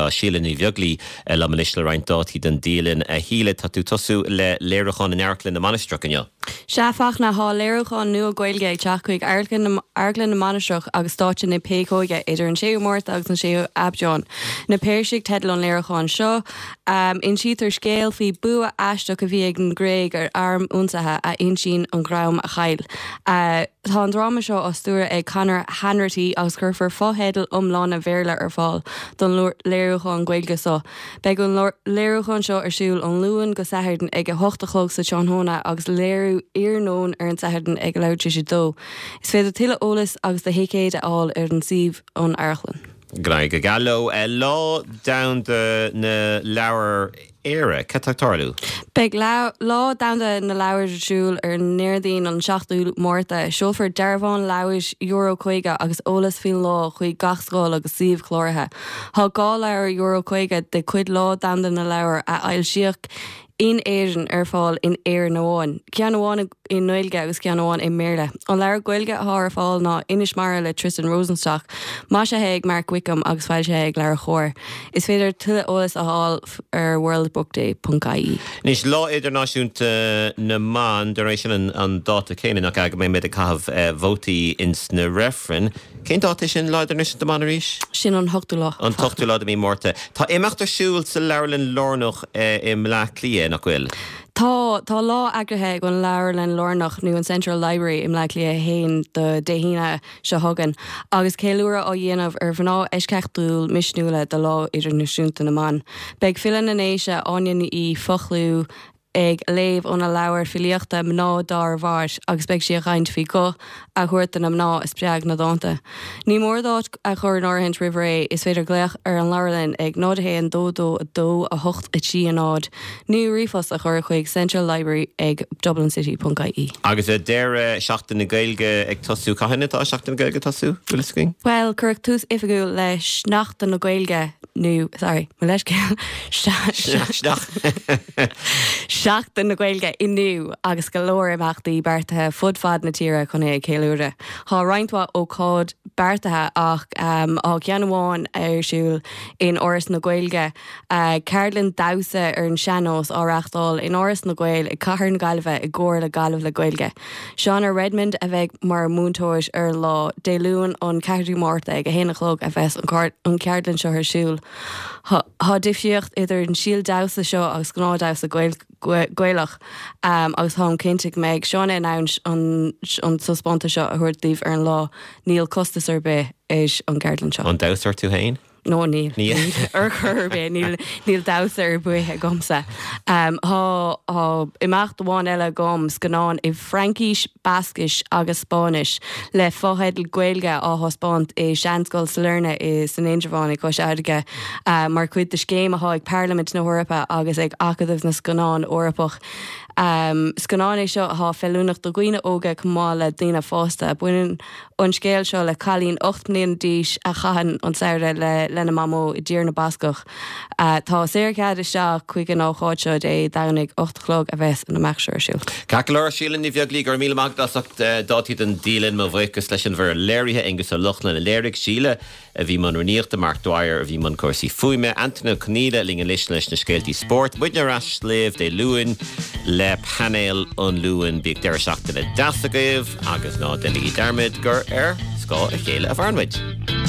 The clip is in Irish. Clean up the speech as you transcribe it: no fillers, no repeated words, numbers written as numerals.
Tá Síle Ní Bheaglaoi liom anois le roinnt dátaí don dialann. A Shíle, tá tú ag tosú le léiriúchán in Amharclann na Mainistreach inniu. Sea, Fachtna, tá léiriúchán nua Gaeilge ag teacht chuig Amharclann na Mainistreach agus Stáitse na Péacóige idir an 6ú Márta agus an 6ú Aibreán. Na Peirsigh teideal an léiriúcháin seo. Insítear scéal faoi bua aisteach a bhí ag an Ghréig ar arm ionsaithe a insíonn an dream a chaill. Tá an dráma seo á stiúradh ag Conor Hanratty agus cuirfear fotheidil iomlána Bhéarla ar fáil don léiriúchán Gaeilge seo. Beidh an léiriúchán seo ar siúl ón Luan go Satharn ag 8 a chlog sa tráthnóna agus léiriú iarnóin ar an Satharn ag a leathuair tar éis a dó. Is féidir tuilleadh eolais agus do thicéid a fháil ar an suíomh ón amharclann. Go n-éirí go geal leo. Lá Domhanda na Leabhar Éire, cad tá ag tarlú? Beidh Lá Domhanda na Leabhar ar siúl ar an nDéardaoin an 7ú Márta. Seolfar dearbhán leabhar Euro 50 agus eolas faoin lá chuig gach scoil agus suíomh cláraithe. Tá 2 leabhar Euro 50 de chuid Lá Domhanda na Leabhar a foilsíodh in Éirinn ar fáil in Éirinn amháin, ceann amháin i nGaeilge agus ceann amháin i mBéarla. An leabhar Gaeilge atá ar fáil ná Inis Mara le Tristan Rosenstock, maisithe ag Mark Wickham agus foilsithe ag LeabhairCOMHAR. Is féidir tuilleadh eolais a fháil ar worldbookday ponc ie. Anois, Lá Idirnáisiúnta na mBan, dar ndóigh sin an dáta céanna, nach ea, go mbeidh muid ag caitheamh vótaí ins na reifrinn. Cén dáta é sin, Lá Idirnáisiúnta na mBan arís? Sin an t-ochtú lá. An t-ochtú lá de mhí Márta. Tá imeacht ar siúl sa Leabharlann Lárnach i mBleá Cliath, nach bhfuil? Tá. Tá lá eagraithe ag an Leabharlann Lárnach, nó an Central Library, i mBleá Cliath 1 do Dé hAoine seo chugainn, agus ceiliúradh á dhéanamh ar mhná eisceachtúil misniúla do Lá Idirnáisiúnta na mBan. Beidh file na nDéise, Áine Ní Fhoghlú, ag léamh óna leabhar filíochta Mná Dár Mhair agus beidh sí ag caint faoi ghuth a thabhairt do na mná a spreag na dánta. Ní mór d'áit a chur in áirithint roimh ré, is féidir glaoch ar an leabharlann ag 0 1 2 2 2 8 3 0 nó ríomhphost a chur chuig central library ag dublincity ponc ie. Agus deireadh Seachtain na Gaeilge ag tosú, cathain atá Seachtain na Gaeilge ag tosú, bhfuil fhios againn? Bhuel, cuireadh tús oifigiúil le Seachtain na Gaeilge nó, sorry, mo leithscéal, Seachtain na Gaeilge inniu agus go leor imeachtaí beartaithe fud fad na tíre chun é a cheiliúradh. Tá roinnt mhaith ócáid beartaithe ach tá ceann amháin ar siúl in Áras na Gaeilge, ceardlann damhsa ar an sean-nós á reáchtáil in Áras na Gael i gcathair na Gaillimhe i gcomhar le Gaillimh le Gaeilge. Shauna Redmond a bheidh mar mhúinteoir ar an lá, Dé Luain an 4ú Márta ag 1 a chlog a bheas an ceardlann seo ar siúl. Tá difríocht idir an stíl damhsa seo agus gnáthdhamhsa Gaelach agus táim cinnte go mbeidh Shauna in ann an taispeántas seo a thabhairt daoibh ar an lá. Níl costas ar bith ar an gceardlann seo. An damhsóir tú féin? No níl. Níl. Ar chor ar bith. Níl, níl damhsa ar bith agamsa. Tá, tá imeacht amháin eile agam, scannán i bhFraincis, Bascais agus Spáinnis le fotheidil Gaeilge á thaispeáint i Seanscoil Sailearna i san Indreabhán i gCois Fharraige mar chuid de scéim atá ag Parlaimint na hEorpa agus ag Acadamh na Scannán Eorpach. Scannán é seo atá feiliúnach do dhaoine óga chomh maith le daoine fásta. Baineann an scéal seo le cailín 8 mbliana d'aois a chaitheann an samhradh le lena mamó i dTír na Bascach. Tá saorchead isteach chuig an ócáid seo Dé Domhnaigh 8 a chlog a bheas an imeacht seo ar siúl. Ceart go leor, Síle Ní Bheaglaoi, go raibh míle maith agat as ucht dátaí don dialann. Mo bhuíochas leis an bhfoireann léirithe, Aengus Ó Lochlainn a léirigh, Síle a bhí i mbun rúnaíochta, Mark Dwyer a bhí i mbun cúrsaí fuaime, Antain Ó Conghaile linn anois leis na scéaltaí spóirt. Muidne ar ais libh Dé Luain le painéal an Luain. Bíodh deireadh seachtaine deas agaibh agus ná déanaigí dearmad gur ar scáth a chéile a mhaireann muid.